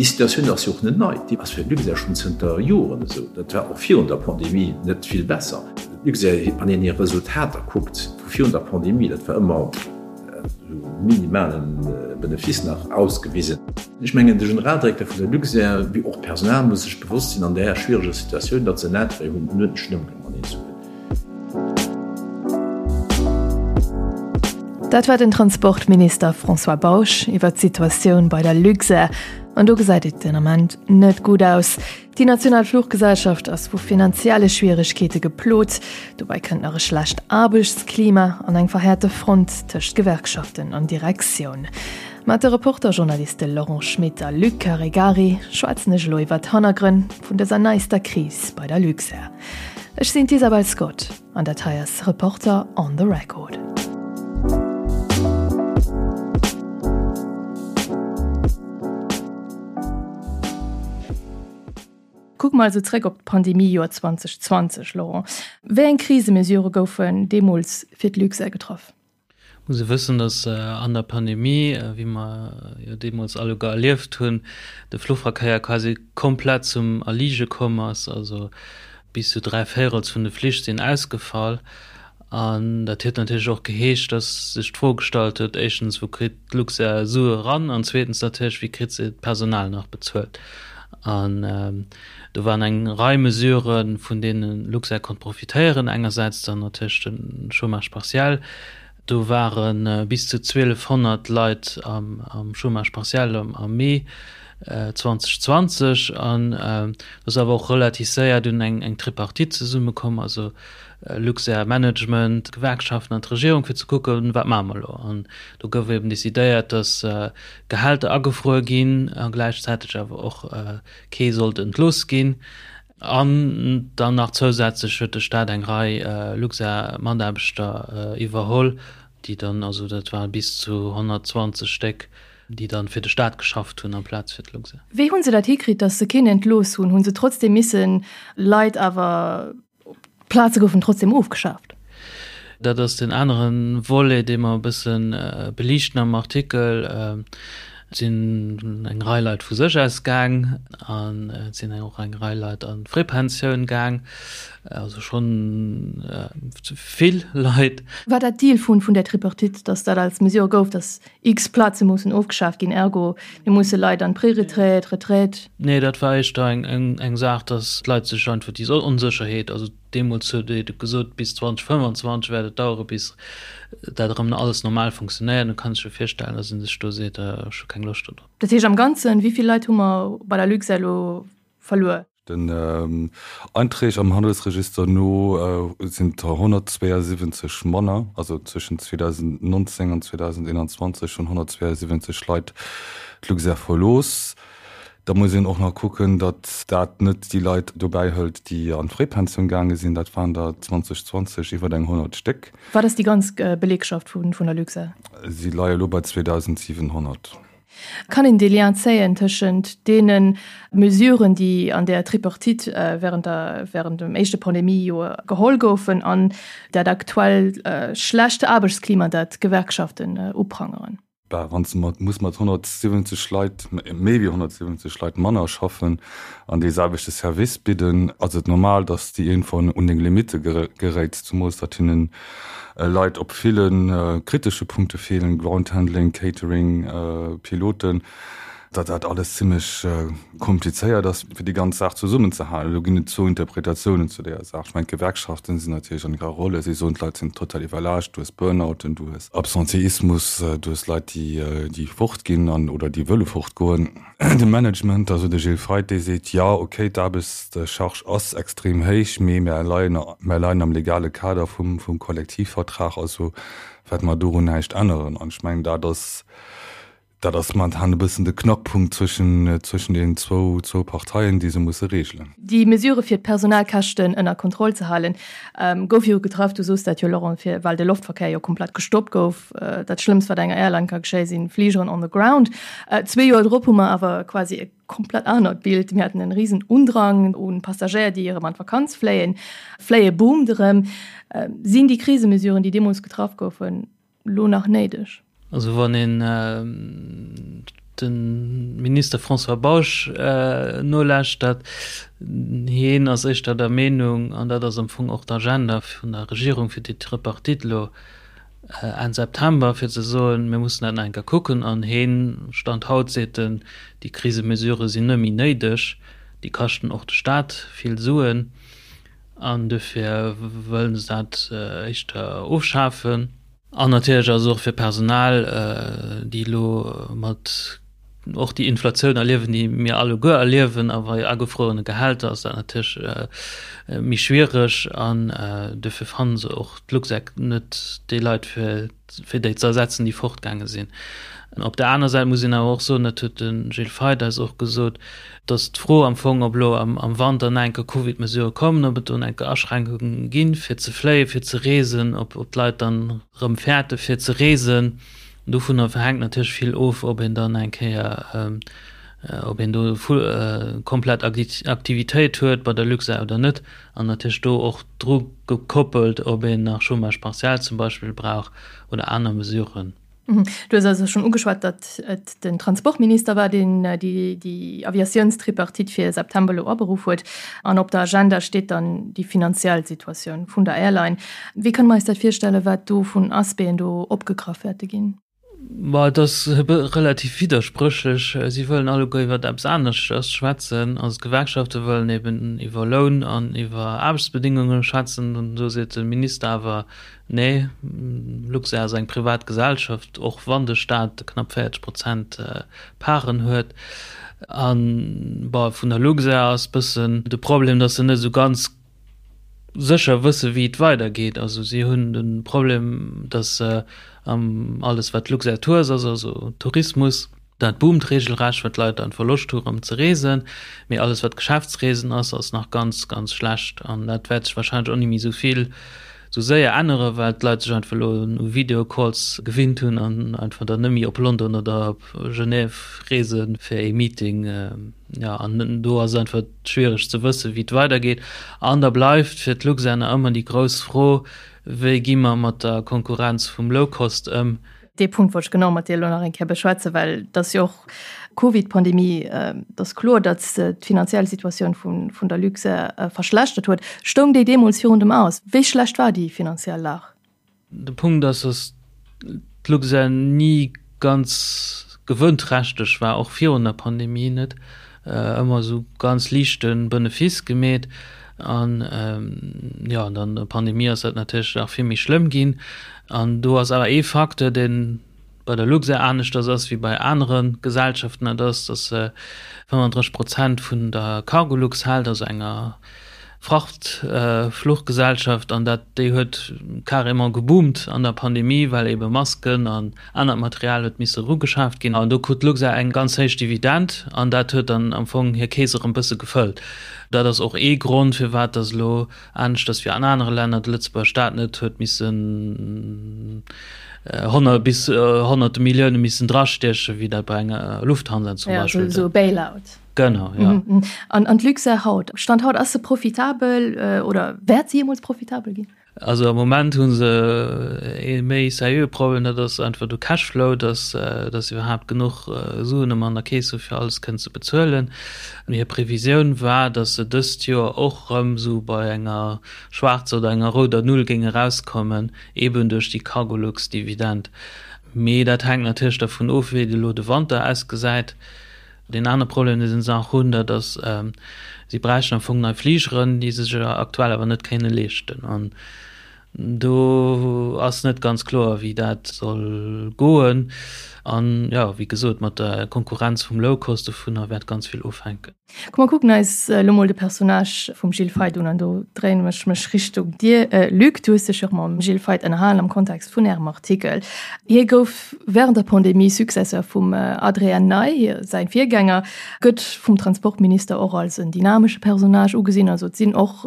Déi Situatioun ass jo och net nei, déi ass fir d'Luxair schonn zënter Joren esou. Dat war och virun der Pandemie net vill besser. D'Luxair, wann een hir Resultater kuckt vu virun der Pandemie, dat war ëmmer esou minimalen Benefice nach ausgewisen. Ech mengen, de Generaldirekter vun der Luxair, wéi och d'Personal, muss sech bewosst sinn an där schwiereger Situatioun, datt se en Intérêt hunn, en uerdentlechen Ëmgang mateneen ze hunn. Dat war den Transportminister François Bausch iwwer d'Situatioun bei der Luxair. An do gesäit et den Ament net gutt aus. Déi national Fluchgesellschaft ass vu finanzielle Schwieregkeete geplot. Dobäi kënnt nach e schlecht Aarbechtsklima an eng verhäerte Front tëscht Gewerkschaften an Direktioun. Mat de Reporter-Journaliste Laurent Schmit a Luc Caregari schwätzen ech elo iwwer d'Hannergrënn vun dëser neister Kris bei der Luxair. Ech sinn d'Isabel Scott an dat hei ass Reporter on the Record. Kucke mer also zréck op d'Pandemie-Joer 2020, Laurent. Wéi eng Krisemesure goufen deemools fir d'Luxair getraff? Muss e wëssen, datt an der Pandemie, wéi mer jo deemools alleguer erlieft hunn, de Fluchverkéier quasi komplett zum Erlige komm ass. Also bis zu 3 Véirels vun de Flich sinn ausgefall. An dat huet natierlech och geheescht, datt sech d'Fro gestallt huet, éischtens, wou kritt d'Luxair Sue eran? An zweetens natierlech, wéi kritt se d'Personal nach bezuelt? An do waren eng Rei Mesuren, vun deene Luxair konnt profitéieren. Engersäits dann natierlech de Chômage partiel. Do ware bis zu 1.200 Leit am Chômage partiel am Mee 2020. An do ass awer och relativ séier dunn eng Tripartite zesummekomm, also Luxair Management, d'Gewerkschaften an d'Regierung, fir ze kucken, wat maache mer elo. An do gouf eben decidéiert, datt Gehälter agefruer ginn a gläichzäiteg awer och kee sollt entlooss ginn. An dann nach zousätzlech huet de Staat eng Rei Luxair-Mataarbechter iwwerholl, déi dann, also dat ware bis zu 120 Stéck, déi dann fir de Staat geschafft hunn amplaz fir d'Luxair. Wéi hu se dat hikritt, datt se keen entlooss hunn? Hu se trotzdeem missen Leit awer D'Plaze goufen trotzdem ofgeschaaft. Dat ass deen anere Volet, dee mer e bësse beliichten am Artikel. Et sinn eng Rei Leit vu sech aus gaang an et sinn och eng Rei Leit an d'Fréipensioun gaang, also schonn vill Leit. War dat Deal vun der Tripartite, datt dat als Mesure gouf, datt X Plaze mussen ofgeschaaft ginn, ergo mir musse Leit an d'Preretraite, Retraite. Nee, dat war éischter eng Saach, datt d'Leit sech einfach déi Onsécherheet, also deemools huet ee gesot, bis 2025 wäert et dauere bis dat erëm alles normal funktionéiert, da kann ee sech jo virstellen, datt ee sech do seet, ech hu keng Loscht do drop. Dat heescht am Ganzen, wéi vill Leit hu mer bei der Luxair elo verluer? Den Einträg am Handelsregister no sinn der 172 manner, also zwëschen 2019 an 2021 hunn 172 Leit d'Luxair verlooss. Da muss een och nach kucken, datt dat net déi Leit dobäi hëlt, déi an d'Fréipensioun gaange sinn. Dat waren der 2020 iwwer eng 100 Stéck. Wat ass déi ganz Belegschaft vun der Luxair? Si leie elo bei 2.700. Kann een dee Lien zéien tëschent deene Mesuren, déi an där Tripartite während der, während dem éischte Pandemiejoer geholl goufen, an dat aktuell schlecht Aarbechtsklima, dat d'Gewerkschaften uprangeren? Bah, wann s de mat, muss mat 170 Leit, méi wéi 170 Leit manner schaffen an dee selwechte Service bidden, ass et normal, datt s de iergendwann un deng Limitte geréits, zumools datt hinnen Leit op ville kritesche Punkte feelen, Groundhandling, Catering, Piloten, datt dat alles zimmlech komplizéiert ass, fir déi ganz Saach zesummenzehalen. Elo ginn et zwou Interpretatiounen zu deeër Saach. Ech mengen, d'Gewerkschaften sinn natierlech an hirer Rolle. Si soen, d'Leit sinn total iwwerlaascht, du hues Burnouten, du hues Absenteismus, du hues Leit, déi fortginn an oder déi wëlle fortgoen. De Management, also de Gilles Feith, dee seet, jo, okay, d'Aarbechtscharge ass extrem héich, mee mär leien, mär leien am legale Kader vum, vum Kollektivvertrag, also wäerte mer dorun näischt änneren. An ech mengen, dat ass, dat ass momentan e bëssen de Knackpunkt zwëschen, zwëschen deenen zwou, zwou Parteien, déi se musse regelen. Déi Mesure fir d'Personalkäschten ënner Kontroll ze halen, gouf jo getraff, du soos dat jo, Laurent, fir, well de Loftverkéier jo komplett gestoppt gouf. Dat Schlëmmst, wat enger Airline ka geschéien, si Fligeren on the ground. Zwee Joer drop hu mer awer quasi e komplett anert Bild. Mir haten en risen Undrang un Passagéier, déi erëm an d'Vakanz fléien. Fléie boomt erëm. Sinn déi Krisemesuren, déi deemools getraff goufen, lo nach néideg? Also wann een. de Minister François Bausch nolauschtert, hien ass éischter der Meenung, an dat ass am Fong och d'Agenda vun der Regierung fir déi Tripartite elo Enn September, fir ze soen, mir mussen dat nach eng Kéier kucken. An hien, Stand haut seet en, déi Krisemesurë sinn net méi néideg, déi kaschten och de Staat vill Suen an dofir wëllen se dat éischter ofschafen. An natierlech ass et och fir d'Personal, déi elo mat och déi Inflatioun erliewen, déi mir alleguer erliewen, a bei agefruerene Gehälter ass dat natierlech méi schwiereg. An dofir fanne se och d'Luxec net déi Leit, fir fir déi ze ersetzen, déi fortgaange sinn. Op der aner Säit muss een awer och soen, dat huet de Gilles Feith eis och gesot, datt d'Fro am Fong, ob elo am Wanter nach eng Kéier Covid-Mesurë kommen, ob et do nach eng Kéier Aschränkunge ginn, fir ze fléien, fir ze reesen, ob d'Leit dann erëm fäerte fir ze reesen, dovunner hänkt natierlech vill of, ob een dann eng Kéier, ob een do komplett Aktivitéit huet bei der Luxair oder net. An natierlech do och dru gekoppelt, ob een nach Chômage partiel zum Beispill brauch oder aner Mesuren. Du hues also schonn ugeschwat, datt et den Transportminister war, deen déi Aviatiounstripartite fir September elo aberuff huet. An op der Agenda steet dann déi finanziell Situatioun vun der Airline. Wéi kënne mer eis dat virstellen, wat do vun Aspecten do opgegraff wäerte ginn? Ma et ass relativ widderspréchlech. Si wëllen alleguer iwwer eppes aneschters schwätzen. Also d'Gewerkschafte wëllen eben iwwer Loun an iwwer Aarbechtsbedingunge schwätzen. An do seet de Minister awer, Nee, Luxair ass eng privat Gesellschaft, och wann de Staat knapp 40 Prozent Paren huet. An bon, vun der Luxair ass bëssen de Problem, datt se net esou ganz sécher wësse wéi et weidergeet. Also si hunn de Problem, datt se alles wat Luxair Tours ass, also Tourismus, dat boomt regelrecht, well d'Leit einfach Loscht hu rëm ze reesen. Mee alles wat Geschäftsreesen ass, ass nach ganz, ganz schlecht. An dat wäert sech wahrscheinlech och ni méi esou vill esou séier änneren, well d'Leit sech einfach elo u Videocalls gewinnt hunn an einfach dann net méi op London oder op Genève reese fir ee Meeting. Jo, an do ass et einfach schwiereg ze wëssen, wéi et weidergeet. An da bleift fir d'Luxair nach ëmmer déi grouss Fro, Wéi gi mer mat der Konkurrenz vum Low-Cost ëm? Dee Punkt wollt ech genau mat dir elo nach eng Kéier beschwätzen, well et ass jo och d'Covid-Pandemie, et ass kloer, datt d'finanziell Situatioun vun der Luxair verschlechtert huet. Stoung déi deemools virun dem Aus? Wéi schlecht war déi finanziell Lag? De Punkt ass, datt d'Luxair ni ganz gewënnträchteg war, och virun der Pandemie net, ëmmer esou ganz liichte Benefice gemeet. An jo, an dann der Pandemie ass dat natierlech nach vill méi schlëmm ginn. An do ass awer ee Facteur, dee bei der Luxair aneschters ass wéi bei anere Gesellschaften, dat ass, datt se 35 Prozent vun der Cargolux hält, also enger Frachtfluchgesellschaft, an dat déi huet carrément geboomt an der Pandemie, well ebe Masken an anert Material huet misse erugeschaaft ginn. An do krut d'Luxair eng ganz héich Dividend an dat huet dann am Fong hir Keess erëm bësse gefëllt. Dat ass och ee Grond, firwat datt elo aneschters wéi an anere Länner de Lëtzebuerger Staat net huet missen honnert bis honnerte Millioune missen drastiechen, wéi dat bei enger Lufthansa zum Beispill. Ja, esou e Bailout. Genau, ja. An an d'Luxair haut, Stand haut, ass se profitabel oder wäert se jeemools profitabel ginn? Also am Moment hu se ee méi seriöe Problem, dat ass einfach de Cashflow, dass dass se iwwerhaapt genuch Suen ëmmer an der Keess hu fir alles kënnen ze bezuelen. Hir Previsioun war, dass se dëst Joer och erëm esou bei enger schwaarzer oder enger rouder Null géinge erauskommen, eeben duerch déi Cargolux-Dividend. Mee dat hänkt natierlech dervun of, wéi elo de Wanter ausgesäit. Deen anere Problem, dee se nach hunn, dat ass, si bräichten am Fong nei Fligeren, déi se sech aktuell awer net kéinne leeschten. An do ass net ganz kloer, wéi dat soll goen. An, jo, wéi gesot, mat der Konkurrenz vum Low-Cost, dovunner wäert ganz vill ofhänken. Komm mer kucken eis elo mol de Personnage vum Gilles Feith un an do dréinen ech mech Richtung dir, Luc. Du hues dech jo och mam Gilles Feith ënnerhalen am Kontext vun ärem Artikel. Hie gouf während der Pandemie Successeur vum Adrien Ney, säin Virgänger, gëtt vum Transportminister och als en dynamesche Personnage ugesinn. Also et sinn och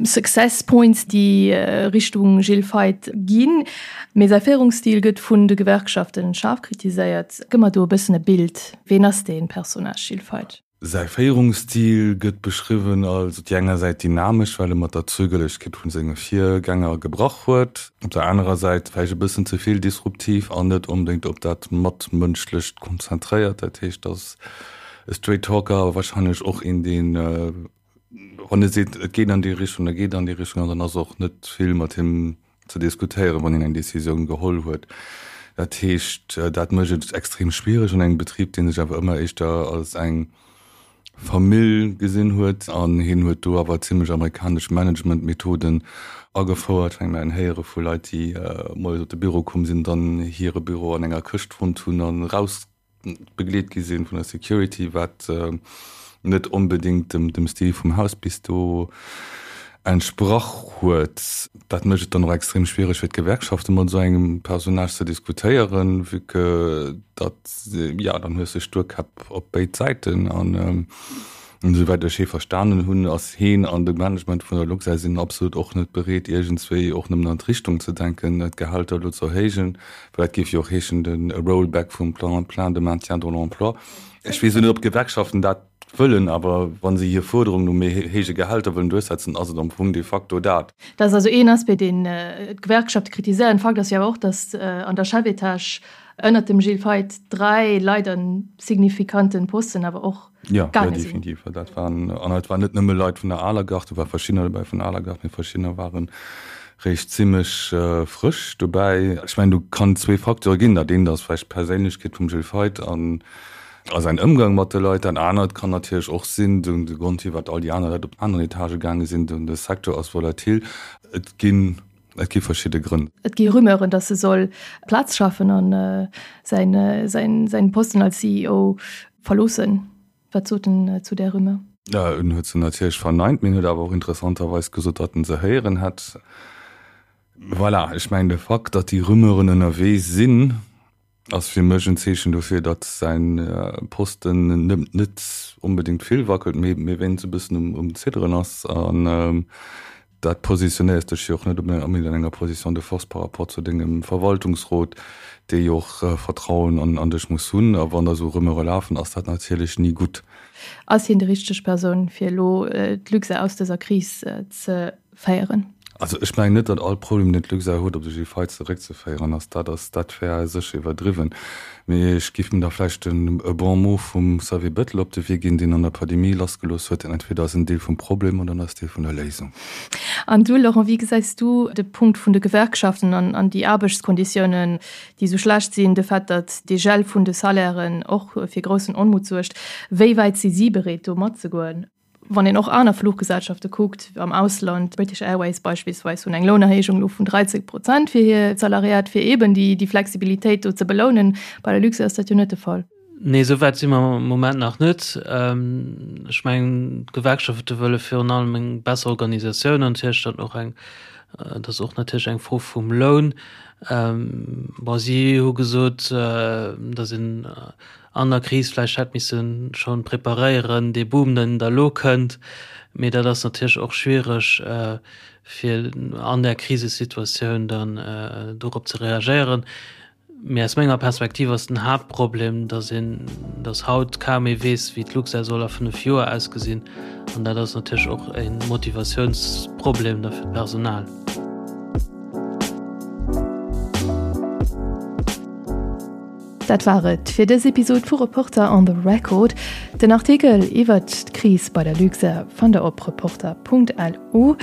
Success Points, déi Richtung Gilles Feith ginn. Mee säi Féierungsstil gëtt vun de Gewerkschaften schaarf kritiséiert. Gëmm mer do e bëssen e Bild, Ween ass dee Personnage Gilles Feith? Säi Féierungsstil gëtt beschriwwen als op déi enger Säit dynamesch, well e mat der Zögerlechkeet vu senge Virgänger gebrach huet, op der anerer Säit vläicht e bëssen ze vill disruptiv an net onbedéngt op dat Matmënschlecht konzentréiert. Dat heescht, ass e Straight Talker, awer warscheinlech och een, deen, wann e seet, et geet an déi Richtung, da geet et an déi Richtung an dann ass och net vill mat him ze diskutéieren, wann een eng Décisioun geholl huet. Dat heescht, dat mécht et extrem schwiereg an engem Betrib, dee sech awer ëmmer éischter als eng Famill gesinn huet. An hien huet do awer zimlech amerikanesch Managementmethoden agefouert. Ech mengen, héiere vu Leit, déi moies op de Büro komm sinn, dann hire Büro an enger Këscht fonnt hunn an eraus begleet gi sinn vun der Security, wat net onbedéngt dem Stil vum Haus bis do entsprach huet. Dat mécht et dann och extrem schwiereg fir d'Gewerkschafte mat esou engem Personnage ze diskutéieren, vue que datt, jo, dann hues de Stuerkäpp op béid Säiten an Esouwäit ech hee verstanen hunn, ass heen an de Management vun der Luxair sinn absolut och net bereet, iergendswéi och nëmmen an d'Richtung ze denken, d'Gehälter elo ze erhéijen, well dat géif jo och heeschen, de Rollback vum Plan plein de maintien dans l'emploi. Ech weess elo net, ob d'Gewerkschaften dat wëllen, awer wa se hir Fuerderung no méi héije Gehälter wëllen duerchsetzen, ass et am Fong de facto dat. Dat ass also een Aspect, deen d'Gewerkschafte kritiséieren. Fakt ass jo awer och, datt an der Chefetage ënnert dem Gilles Feith 3 Leit a signifikanten Posten awer och Ja, ja definitiv. Dat waren, an et waren net nëmme Leit vun der aler Garde, do war verschiddener dobäi vun der aler Garde, mee verschiddener waren réischt zimmlech frësch dobäi. Ech mengen, do kann zwee Facteure ginn. Dat eent ass vläicht d'Perséinlechkeet vum Gilles Feith an a säin Ëmgang mat de Leit. Dat anert kann natierlech och sinn, de Grond firwat all déi aner Leit op aneren Etagë gaange sinn, de Secteur ass volatil. Et ginn Et gi verschidde Grënn. Et gi Rumeuren, datt e soll Plaz schafen a säin Posten als CEO verloossen. Wat sot en zu där Rumeur? En huet se natierlech verneint, mee en huet awer och interessanterweis gesot, datt en se héieren hätt. Voilà, ech mengen de Fakt, datt déi Rumeuren ënnerwee sinn, Ass fir mech en Zeechen dofir, datt säin Posten net onbedéngt vill wackelt, mee wéinst e bëssen um Zidderen ass. An dat positionéiers dech jo och net onbedéngt an enger Position de force par rapport zu dengem Verwaltungsrot, dee jo och Vertrauen an dech muss hunn. A wann da sou Rumeure lafen, ass dat natierlech ni gutt. Ass hien déi richteg Persoun, fir elo d'Luxair aus dëser Kris ze féieren? Also ech mengen net, datt all Problem, deen d'Luxair huet, op de Gilles Feith zeréckzeféieren ass. Dat ass, dat wär sécher iwwerdriwwen. Mee ech géif mir da vläicht en e Bon mot vum Xavier Bettel op de Wee ginn, deen an der Pandemie lassgelooss huet, Entweder ass en Deel vum Problem oder en ass Deel vun der Léisung. An du, Laurent, wéi gesäis du de Punkt vun de Gewerkschaften an an déi Aarbechtskonditiounen, déi esou schlecht sinn, de Fait, datt dee Gel vun de Salairen och fir groussen Onmut suergt? Wéi wäit si si bereet, do matzegoen? Wann een och aner Fluchgesellschafte kuckt am Ausland, British Airways beispillsweis, hunn eng Lounerhéijung elo vun 13 Prozent fir hir Salariat, fir eeben déi Flexibilitéit do ze belounen. Bei der Luxair ass dat jo net de Fall. Nee, esou wäit si mer am Moment nach net. Ech mengen, d'Gewerkschafte wëlle virun allem eng besser Organisatioun an natierlech dann och eng, dat ass och natierlech eng Fro vum Loun. Bon, si hu gesot, datt een an der Kris vläicht hätt misse schonn preparéieren, dee Boom, deen da elo kënnt. Mee dat ass natierlech och schwiereg, fir an där Krisesituatioun dann dorop ze reagéieren. Mee aus menger Perspektiv ass den Haaptproblem, datt een, datt haut kaum ee weess, wéi d'Luxair soll a 5 Joer ausgesinn. An dat ass natierlech och e Motivatiounsproblem da fir d'Personal. Dat war et fir dës Episod vu Reporter on the Record. Den Artikel iwwert d'Kris bei der Luxair fannt der op reporter.lu.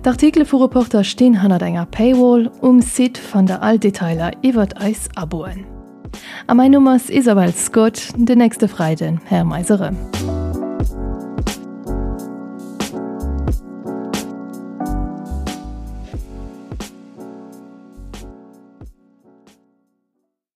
D'Artikele vu Reporter stinn hannert enger Paywall. Um Site fannt der all Detailer iwwert eis Aboen. A mäin Numm ass Isabel Scott. Den nächste Freiden héiere mer eis erëm.